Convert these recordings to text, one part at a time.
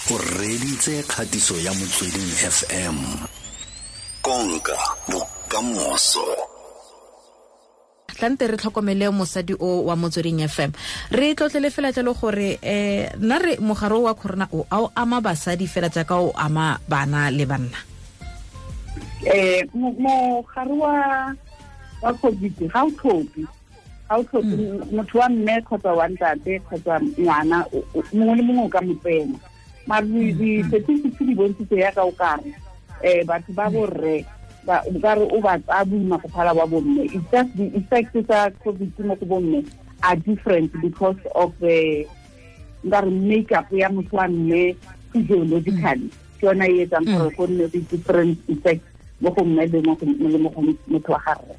O reditse kgatiso ya Motsweding FM. Konka bokamoso. Tlante re tlhokomele mosadi o wa Motsweding FM. Re tlotlele fela jalo gore nna re mogare wa corona o a o ama basadi fela jaaka o ama bana le banna. Mogare wa COVID ga o tlhophe. Ga o tlhophe motho wa mme kgotsa wa ntate kgotsa ngwana, mongwe le mongwe o ka mo tsena. Mare di-statistics di bontshitse yaka o kare batho ba borre o kare o ba tsaya boima go phala ba bomme. It's just the effects tsa COVID mo go bomme are different because of the nkare makeup ya motho wa mme physiologically. Ke yona e etsang gore go nne le different effects mo go mme le mo go motho wa gagwe.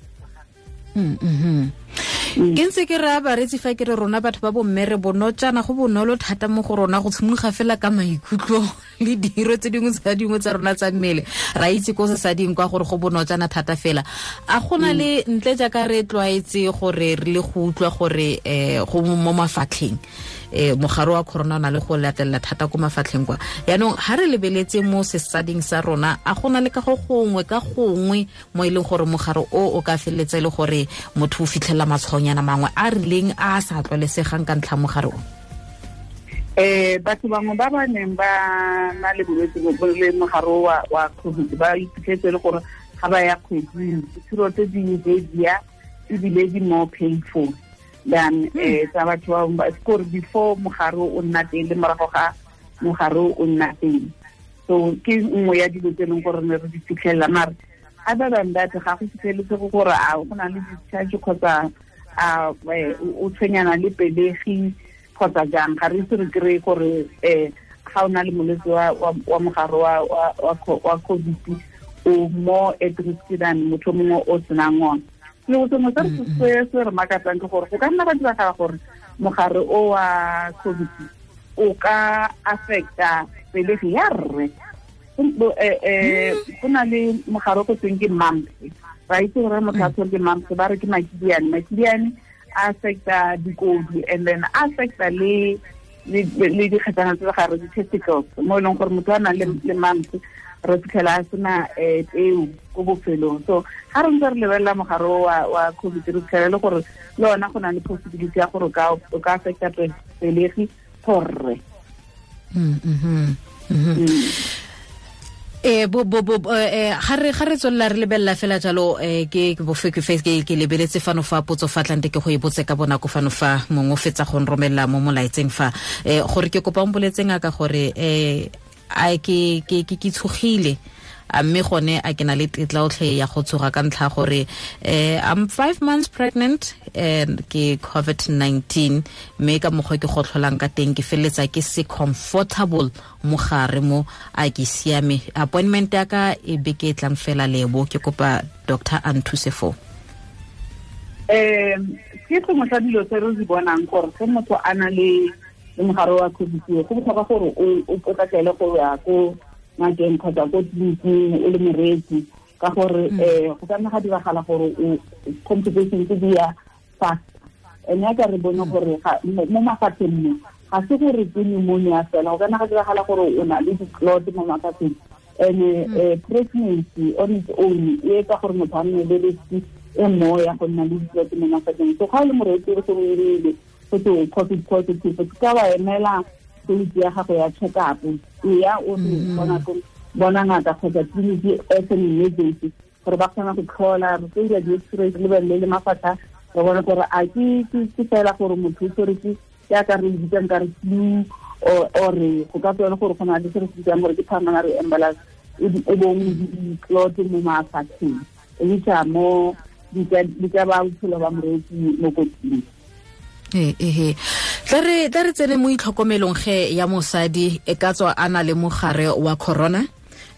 Ke ntse ke raya bareetsi fa ke re rona batho ba bomme re bonotjana, go bonolo thata mo go rona go tshimologa fela ka maikutlo le diro tse dingwe tsa dingwe tsa rona tsa mmele. Ra itse ko sesading kwa gore go bonotjana thata fela. A gona le ntle jaaka re tlwaetse gore re le go utlwa gore go mo mafatlheng, mogare wa corona o na le go latelela thata ko mafatlheng kwa. Yaanong ha re lebeletse mo sesading sa rona, a gona le ka go gongwe ka gongwe mo e leng gore mogare o ka feleletsa e le gore motho o fitlhela matshwaonyana mangwe a rileng a sa tlwaelesegang ka ntlha mogare o? Batho bangwe ba ba neng ba na le bolwetse bo le mogare wa COVID ba iphitlhetse le gore ga ba ya kgweding, ditshiro tse di heavier ebile di more painful than tsa batho ba bangwe, before mogare o nna teng le morago ga mogare o nna teng. So ke nngwe ya dilo tse e leng gore ne re di fitlhelela. Mare other than that, ga go fitlheletse gore a go na le discharge kgotsa a o tshwenyana le pelegi kgotsa jang. Ga re ise re kry-e gore ga o na le molwetse wa mogare wa COVID o more at risk than motho mongwe o senang ona. Selo sengwe se se re makatsang ke gore go ka nna ga diragala gore mogare o wa COVID o ka affecta pelegi ya rre. Go na le mogare o go tweng ke mumps. Ra itse gore motho a tshwere ke mumps, ba re ke makidiane. Makidiane a affecta dikodu and then a affecta le dikgetsana tse gare, di-testicles, mo e leng gore motho a nang le mumps re fitlhela a sena peo ko bofelong. So ga re ntse re lebelela mogare wa COVID, re fitlhela le gore le ona go na le possibility ya gore o ka affecta pelegi for rre. Ga re tswelela re lebelela fela jalo, ke ke lebeletse fano fa potso fa tlante ke go e botse ka bonako fano fa mongwe o fetsa go nromelela mo molaetseng fa, gore ke kopa o mpoletseng ka gore a ke tshogile, a mme gone a ke na le tetla otlhe ya go tshoga ka ntlha gore I'm 5 months pregnant and ke COVID-19, mme ka mokgwa ke go tlholang ka teng ke feleletsa ke se comfortable mogare mo, a ke siame. Appointment ya ka e beke e tlang fela lebo, ke kopa doctor a nthuse foo. Ke sengwe sa dilo tse re di bonang gore ge motho a na le mogare wa COVID, go botlhokwa gore o potlakele go ya ko ngakeng kgotsa ko tleliniking o le moreetsi, ka gore go ka nna ga diragala gore o complications di ya fast. And ya ka re bone gore mo mafapheng mo ga se gore ke pneumonia fela, go ka nna ga diragala gore o na le di-clot mo mafapheng. And pregnancy on its own e etsa gore motho a nne le risk e more ya go nna le di-clot mo mafapheng. So ga o le moreetsi o se o irile go twe o COVID positive, o ka wa emela date ya gago ya check-up, e ya o re bona ngaka kgotsa tleliniki as an emergency gore ba kgona go tlhola, re tlo dira di-x-ray, re lebelele le mafatlha, re bone gore a ke fela gore motho o tshwere ke jaaka re bitsang ka re flu, or go ka tswa e le gore go na le se re se bitsang gore ke pulmonary embolus, e bong di-clot mo mafatlheng, which are more di ka ba bophelo ba moreetsi mo kotsing. Tla re tsene mo itlhokomelong ge ya mosadi e ka tswa a na le mogare wa corona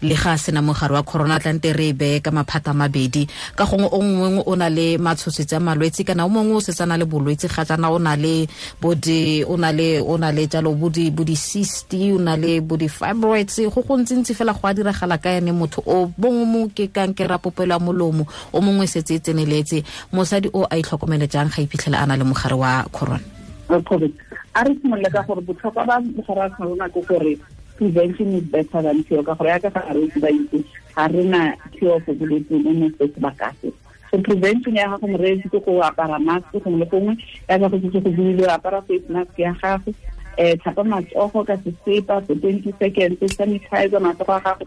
le ga a sena mogare wa corona, tlante re e beye ka maphata a mabedi. Ka gongwe o mongwe o na le matshosetsi a malwetse, kana o mongwe o setse a na le bolwetse ga jaana, o na le bo di, o na le, o na le jalo bo di, bo di cyst, o na le bo di fibroids, go go ntsintsi fela go a diragala ka ene motho o. Bongwe mo ke kankere ya popelo ya molomo, o mongwe setse e tseneletse. Mosadi o a itlhokomele jang ga iphitlhela a na le mogare wa corona? Wa COVID. A re simolole ka gore botlhokwa ba mogare wa corona ke gore Prevention is better than cure, ka gore yaka ga re itse ba itse ga re na cure for bolwetse mo mo sebaka se. So prevention ya gago moreetsi ke go apara mask gongwe le gongwe, yaka go setse go buile, apara face mask ya gago, tlhapa matsogo ka sesepa for 20 seconds, sanitize matsogo a gago,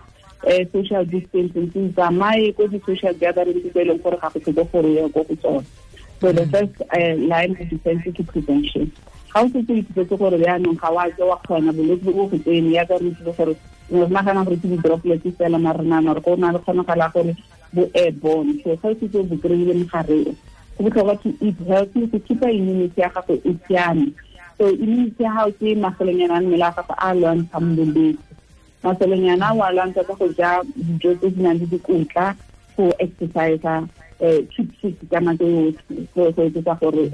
social distancing, tsamaye ko di-social gatherings tse e leng gore ga go tlhoke gore ye ko go tsone. So the first line of defense ke prevention. Ga o setse o ithutetse gore jaanong ga wa ke wa kgona bolwetse bo go tsene, yaka re itsile gore re nagana gore ke di-droplets fela, mare re nagana gore go na le kgonagala gore bo airborne. So ga o setse o bo kry-ile mogare o, go botlhokwa to eat healthy, go keep-a immunity ya gago e siame. So immunity ya gago ke masolonyana a mmele a gago a lwantshang bolwetse. Masolonyana a o a lwantsha ka go ja dijo tse di nang le dikotla, go exercise, keep fit ka nako yotlhe, go etsetsa gore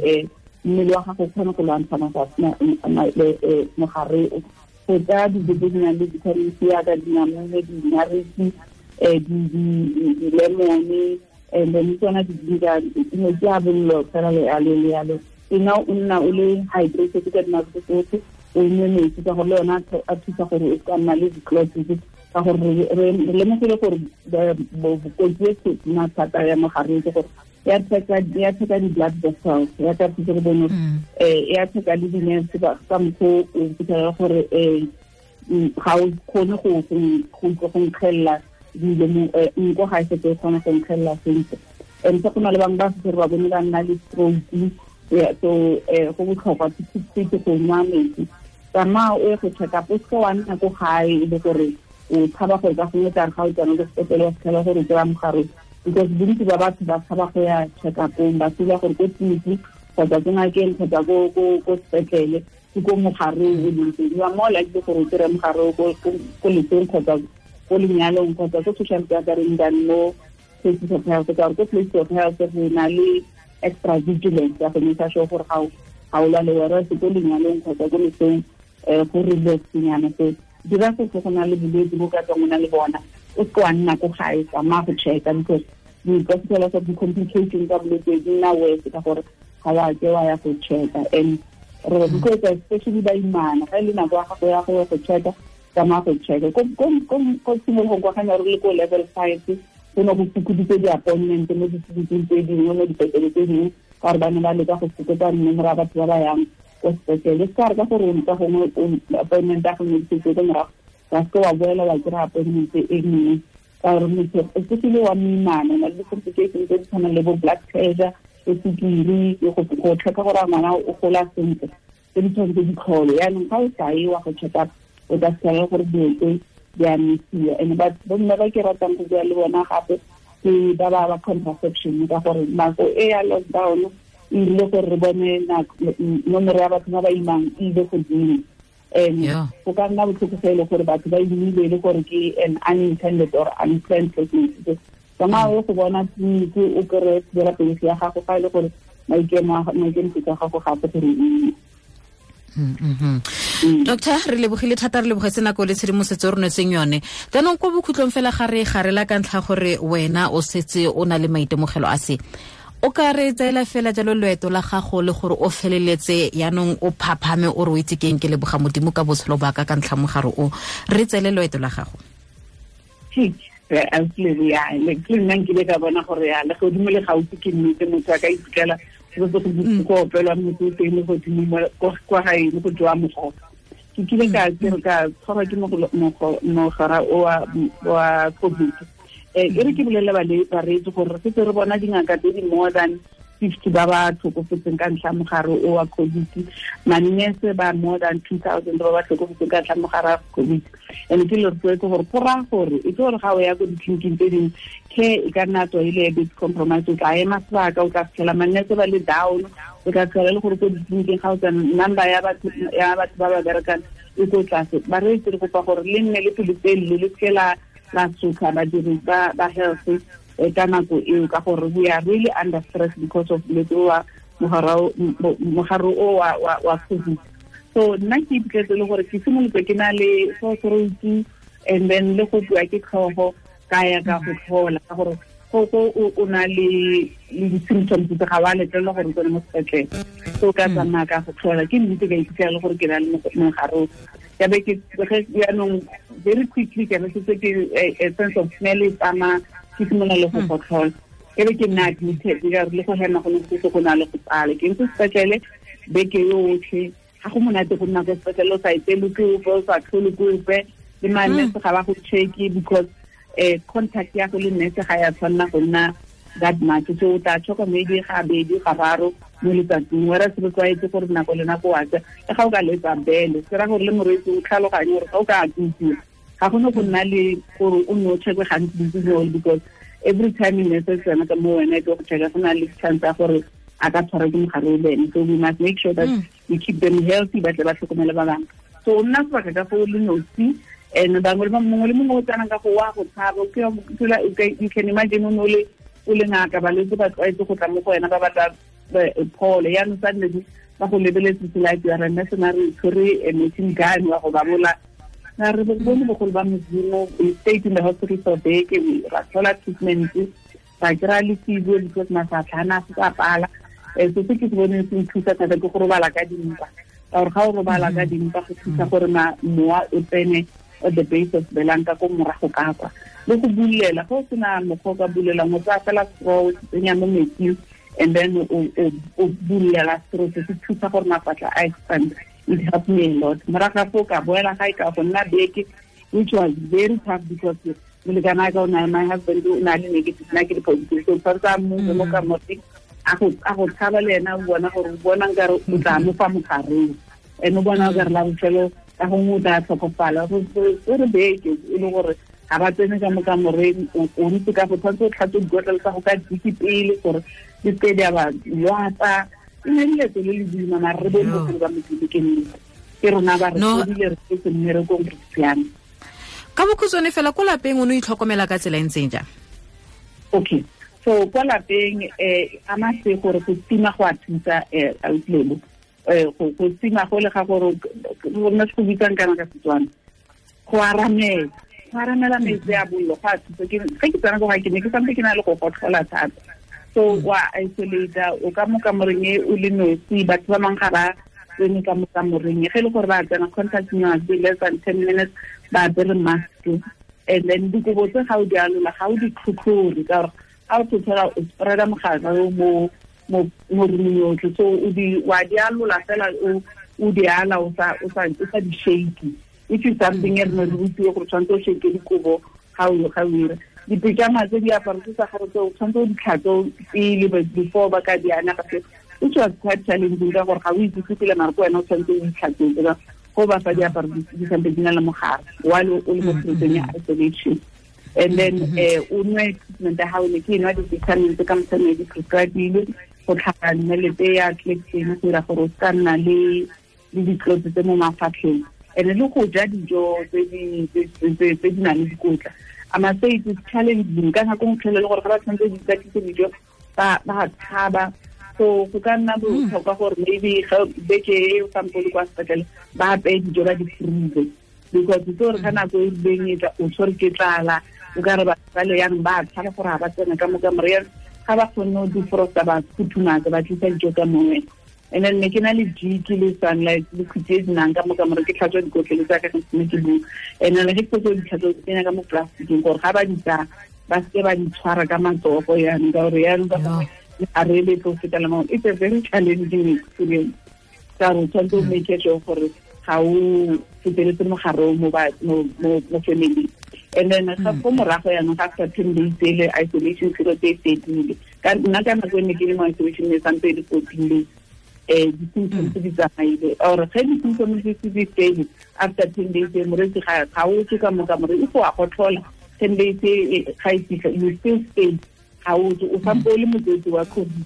mmele wa gago o kgone go lwantsha mogare o. Go ja dijo tse di nang le vitamin C yaka dinamune, dinariki, di-lemone, and then tsona di-ginger, metsi a bollo fela le yalo le yalo. Ena o nna o le hydrated ka dinako tsotlhe, o nwe metsi ka gore le yona a thusa gore o ka nna le di-clots, ka gore re lemogile gore kotsi e tona thata ya mogare ke gore ya theka di-blood vessels, ya ka thusa re bone, ya theka le di-nerves ka mokgwa o fitlhela gore ga o kgone go nkgelela dilo mo, nko ga e setse e kgona go nkgelela sentle. And se go na le bangwe ba setse re ba bone ba nna le stroke. So go botlhokwa to go nwa metsi. Tsamaya o ye go check up, o seke wa nna ko gae e le gore o tshaba gore ka gongwe tla re ga o tsena ko sepetlele wa fitlhela gore o kry-a mogare, because bontsi ba batho ba tshaba go ya check up-ong, ba feel-a gore ko tleliniking kgotsa ko ngakeng kgotsa ko sepetlele ke ko mogare o leng teng. You are more likely gore o kry-e mogare ko lesong kgotsa ko lenyalong kgotsa ko social gathering than mo places of health, ka gore ko places of health re na le extra vigilance ya go make sure gore ga o lwale, whereas ko lenyalong kgotsa ko lesong go relax-nyana. So dira se go na le bolwetse bo ka tswang o na le bona, o seke wa nna ko gae, tsamaya go check-a, because di ka fitlhela gore di-complications tsa bolwetse di nna worse ka gore ga wa ke wa ya go check-a. And re rotloetsa especially baimana, ga e le nako ya gago ya go ya go check-a, tsamaya go check-a. Ko tshimologong kwa ga ne re le ko level 5, go ne go fokoditse di-appointment mo ditleliniking tse dingwe, mo dipetlele tse dingwe, ka gore ba ne ba leka go fokotsa nomoro ya batho ba ba yang ko sepetlele. Se ka re ka gore ka gongwe appointment ya gongwe di ko morago, wa seke wa boela wa kry-a appointment e nngwe, ka gore motho especially wa moimana o na le di-complications tse di tshwanang le bo blood pressure, le sukiri, go check-a gore ngwana o gola sentle, tse di tshwanetse di tlhole. Yaanong ga o sa ye wa go check up, o tla fitlhela gore dilo tse di a misiwa. And bomme ba ke ratang go bua le bona gape ke ba ba contraception, ka gore nako e ya lockdown e ile gore re bone nomoro ya batho ba ba imang e ile godimo. And go ka nna botlhoko fa e le gore batho ba imile e le gore ke an unintended or unplanned pregnancy. Tsamaya o go bona tleliniki o kry-e thibela pelegi ya gago fa e le gore maikemisetso a gago gape gore o ime. Doctor, re lebogile thata, re lebogetse nako le tshedimosetso e re nwetseng yone. Jaanong ko bokhutlong fela ga re garela ka ntlha gore wena o setse o na le maitemogelo a se, o ka re tseela fela jalo loeto la gago le gore o feleletse yaanong o phaphame o re o itse keng, ke leboga Modimo ka botshelo ba ka ka ntlha mogare o, re tseele loeto la gago. Le nna nkile ka bona gore ya le godimo le gaufi ke nnete, motho a ka iphitlhela go go opelwa motho o teng le godimo kwa gae le go jewa mogogo. Ke kile ka tshwarwa ke mogara o wa COVID. E re ke bolelele bareetsi gore re setse re bona dingaka tse di more than 50 ba ba tlhokofetseng ka ntlha mogare o wa COVID, manese ba more than 2,000 ba ba tlhokofetseng ka ntlha mogare wa COVID. And ke le rotloetse gore go raya gore e tse gore ga o ya ko ditleliniking tse dingwe, care e ka nna tswa e le a bit compromise, o tla ema sebaka, o tla fitlhela manese ba le down, o tla fitlhela le gore ko ditleliniking ga o tsena number ya batho ba ba berekang e ko tlase. Bareetsi re kopa gore le nne le pelotelele, le seke la sotlha badiri ba health ka nako eo, ka gore we are really under stress because of bolwetse wa mogare o wa COVID. So nna ke iphitlhetse le gore ke simolotse ke na le sore throat and then le go bua ke tlhogo, ka ya ka go tlhola, ka gore go o na le di-symptoms tse ga wa letlelelwa gore o tsene mo sepetlele. So ka tsamaya ka go tlhola, ke nnete ka iphitlhela le gore ke na le mogare o. Ke be ke jaanong very quickly ke be setse ke a sense of smell e tsamaya, ke simolola le go gotlhola. Ke be ke nna admitted ka re le go hema go ne go go na le go pala. Ke ntse sepetlele beke yotlhe, ga go monate go nna ko sepetlele o sa etele ke ope, o sa tlhole ke ope, le manese ga ba go check-e because contact ya go le nurse ga ya tshwanela go nna that much. So o tla choka maybe ga bedi ga raro mo letsatsing, whereas re tlwaetse gore nako le nako wa tsa le ga o ka letsa bele, se ra gore le morwetsi o tlhaloganye gore ga o ka akutsiwa ga gone go nna le gore o nne o check-e gantsi because every time nurse e tsena ka mo wena e tlo go check-a go na le chance ya gore a ka tshwarwa ke mogare o le ene. So we must make sure that we keep them healthy, ba tle ba tlhokomele ba bangwe. So o nna sebaka ka foo le nosi, and bangwe le mongwe le mongwe o tsenang ka go wa go tshaba. You can imagine o ne o le ngaka, balwetse ba tlwaetse go tla mo go wena ba batla pholo, yaanong suddenly ba go lebeletse like you are a mercenary, tshwere a machine gun wa go ba bola. Na re bone bogolo ba Modimo, we stayed in the hospital for beke, ra thola treatment, ra kry-a le physio because mafatlha a ne a se a pala. So se ke se boneng se nthusa thata ke go robala ka dimpa, ka gore ga o robala ka dimpa go thusa gore mowa o tsene at the base of belang ka ko morago ka kwa. Le go bulela, ga o sena mokgwa o ka bulelang, o tsaya fela straw o tsenya mo metsing and then o bulela straw, se se thusa gore mafatlha a expand. It helped me a lot. Morago ga foo ka boela gae ka go nna beke, which was very tough because molekane wa ka o na, my husband o na le negative, nna ke le positive. So tshwanetse a move mo kamoreng, a go tshaba le ena, o bona gore o bona nkare o tla mo fa mogareng, and o bona nkare la bofelo ka gongwe o tla tlhokofala. So re beke e le gore ga ba tsene ka mo kamoreng, o ntse ka go tshwanetse o tlhatswe dikotlelo tsa go ka diki pele gore di seke di a ba lwatsa. E ne le leeto le le boima, mara re bone bogolo ba Modimo ke nnete, ke rona ba re fodile, re setse mmerekong, re siame. Ka bokhutshwane fela, ko lapeng o ne o itlhokomela ka tsela e ntseng jang? Okay, so kwa lapeng a mase gore go tima go a thusa autlebo, go tima go le ga gore rona se go bitsang kana ka Setswana go aramela metsi a bollo go a thusa. Ge ke tsena ko gae ke ne ke santse ke na le go gotlhola thata, so wa isolate o ka mo kamoreng e o le nosi, batho ba bangwe ga ba tsene ka mo kamoreng, ge e le gore ba tsena contact must be less than 10 minutes, ba apere mask, and then dikobo tse ga o di alola ga o di tlhotlhore ka gore ga o tlhotlhora o spread-a mogare o mo roomong yotlhe. So wa di alola fela, o di ala o sa di shake, which is something e re ne re rutiwe gore tshwanetse o shake dikobo ga o ira. Dipejama tse diaparo tse tsa gago tse o tshwanetse o di tlhatswe pele before ba ka di ana gape, which was quite challenging ka gore ga o itse pele mara ko wena o tshwanetse o itlhatswetse go ba fa diaparo di sampe di na le mogare while o le mo period ya isolation. And then o nwe treatment ya gago, ne ke nwa di-vitamin tse ka motshwane di prescribe-ile go tlhapa nnelete ya Clexane go dira gore o se ka nna le ditlotse tse mo mafatlheng, and le go ja dijo tse di nang le dikotla. I must say it is challenging ka nako nngwe le gore ga ba tshwanetse di ikatise dijo ba tshaba. So go ka nna botlhokwa gore maybe ga beke e o sampo le kwa sepetlele ba apeye dijo ba di freeze, because itse gore ka nako e rileng e tla o tshwere ke tlala, o ka re ba le yang ba tshaba gore ga ba tsena ka mo kamoreng, ga ba kgonne go defrosta ba futhumatsa ba tlisa dijo ka mongwe. And then ne ke na le jiki le sunlight le khuti e dinang ka mo kamoreng, ke tlhatswa dikotlele tsa ka ne ke bua, and then ge ke fetsa di tlhatswa ke tsenya ka mo plasticeng gore ga ba di tsaya ba seke ba di tshwara ka matsogo yanong, ka gore yanong ka gongwe a re le tlo fetela mo. It's a very challenging experience ka gore tshwanetse o make sure gore ga o feteletse mogare mo family. And then ga go morago yanong ga after 10 days ele isolation period e fedile, ka nna ka nako e ne ke le mo isolation e santse e le 14 days, di-symptoms di tsamaile or ge di-symptoms di fedile after 10 days morwetsi ga o tswe ka mo kamoreng, if wa gotlhola 10 days ga e fitlha you still stay, ga o tswe, o sampo o le motswetsi wa COVID.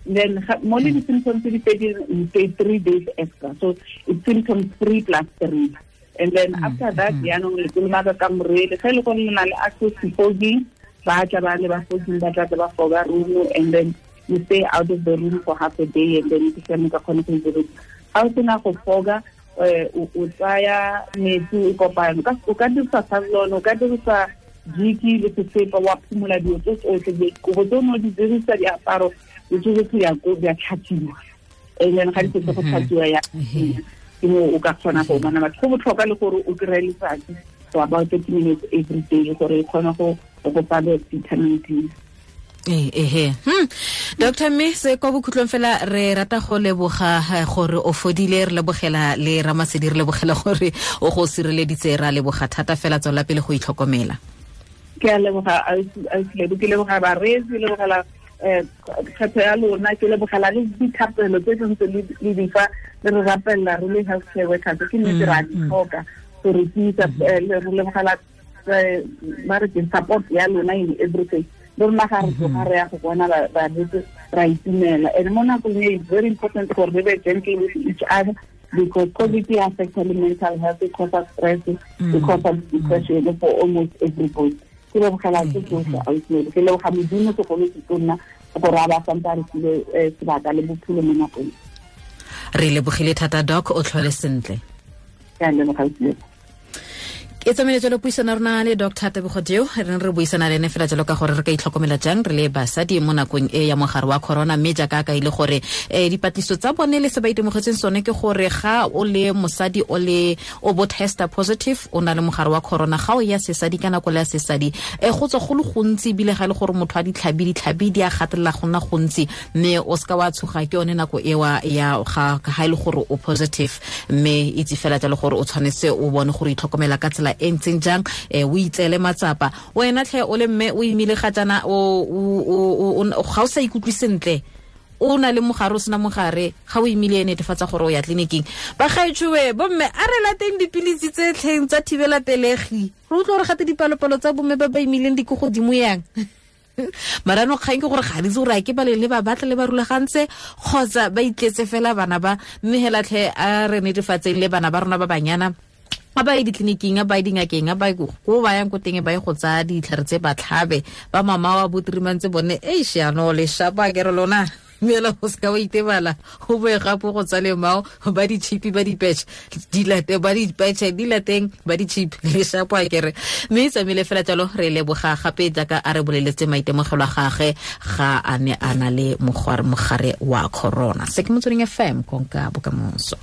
Then mo le di-symptoms di fedile, you stay 3 days extra, so it's symptoms 3 plus 3. And then after that yaanong le kolomaka kamore, ge e le gore le na le access to fogging, ba tla ba le ba fogging, ba tla ba foga room, and then you stay out of the room for half a day, and then ke siame ka kgone go itse. Ga o sena go foga, o tsaya metsi o kopano, o ka dirisa Savlon, o ka dirisa jiki le sesepa, wa phumola dilo tse tsotlhe, dikobo tse o ne o di dirisa, diaparo, le tsotlhe di a tlhatswiwa, and then ga di setse go tlhatswiwa ya. Ke mo o ka kgona go bona batho. Go botlhokwa le gore o kry-e letsatsi for about 30 minutes every day gore e kgone go go fa vitamin D. Ehe. Dr. Mme se kwa bokhutlong fela re rata go leboga gore o fodile, re lebogela le Ramasedi, re lebogela gore o go sireleditse, ra leboga thata fela, tswela pele go itlhokomela. Ke a leboga ausi, ke leboga bareetsi, lebogela kgetho ya lona, ke lebogela le dithapelo tse ntse le di fa le re rapelela re le healthcare workers, ke nnete ra di tlhoka gore tiisa. Re lebogela ba re ke support ya lona in everything. Le rona ga re tloga re ya go bona balwetse ra itumela. And mo nakong e, it's very important gore re be gentle with each other because COVID e affecta le mental health, e causa stress, e causa depression for almost everybody. Ke lebogela tse tsotlhe ausi, ke leboga Modimo segolo se tonna gore a ba santse a re file sebaka le bophelo mo nakong. Re lebogile thata, doc, o tlhole sentle. Ke a leboga, ausi. E tsamaile jalo puisano rona le Dr Tebogo Deo, re ne re buisana le ene fela jalo ka gore re ka itlhokomela jang re le basadi mo nakong e ya mogare wa corona. Mme jaaka ka ile gore dipatlisiso tsa bone le se ba itemogetseng sone ke gore ga o le mosadi, o le o bo testa positive, o na le mogare wa corona, ga o ya sesadi ka nako le ya sesadi, go tswa go le gontsi, ebile ga e le gore motho a ditlhabi, ditlhabi di a gatelela go nna gontsi. Mme o seka wa tshoga, ke yone nako ewa ya ga e le gore o positive. Mme itse fela jalo gore o tshwanetse o bone gore itlhokomela ka tsela e ntseng jang, o itseele matsapa wena tlhe o le mme o imile ga jaana, ga o sa ikutlwe sentle, o na le mogare, o sena mogare, ga o imile, netefatsa gore o ya tleliniking. Bagaetshoe bomme, a re lateng dipilisi tse tlheng tsa thibela pelegi. Re utlwa gore gate dipalopalo tsa bomme ba ba imileng di ko godimo yang marano. Kgang ke gore ga di itse gore a ke ba le ba batla le ba rulagantse kgotsa ba itletse fela bana ba. Mme hela tlhe, a re netefatseng le bana ba rona ba banyana, a ba ye ditleliniking, a ba ye dingakeng, a ba ye ko ba yang ko teng, ba ye go tsaya ditlhare tse ba tlhabe. Ba mama wa botirimantse bone eish, yano le shapa ke re lona mela, o seka wa itebala go boe gape go tsa lemao ba di-chip, ba di-patch di late, ba di-patch di lateng, ba di-chip le shapo a kere. Mme e tsamaile fela jalo. Re leboga gape jaaka a re boleletse maitemogelo a gage ga a ne a na le mogare wa corona. Se ke Motsweding FM, konka bokamoso.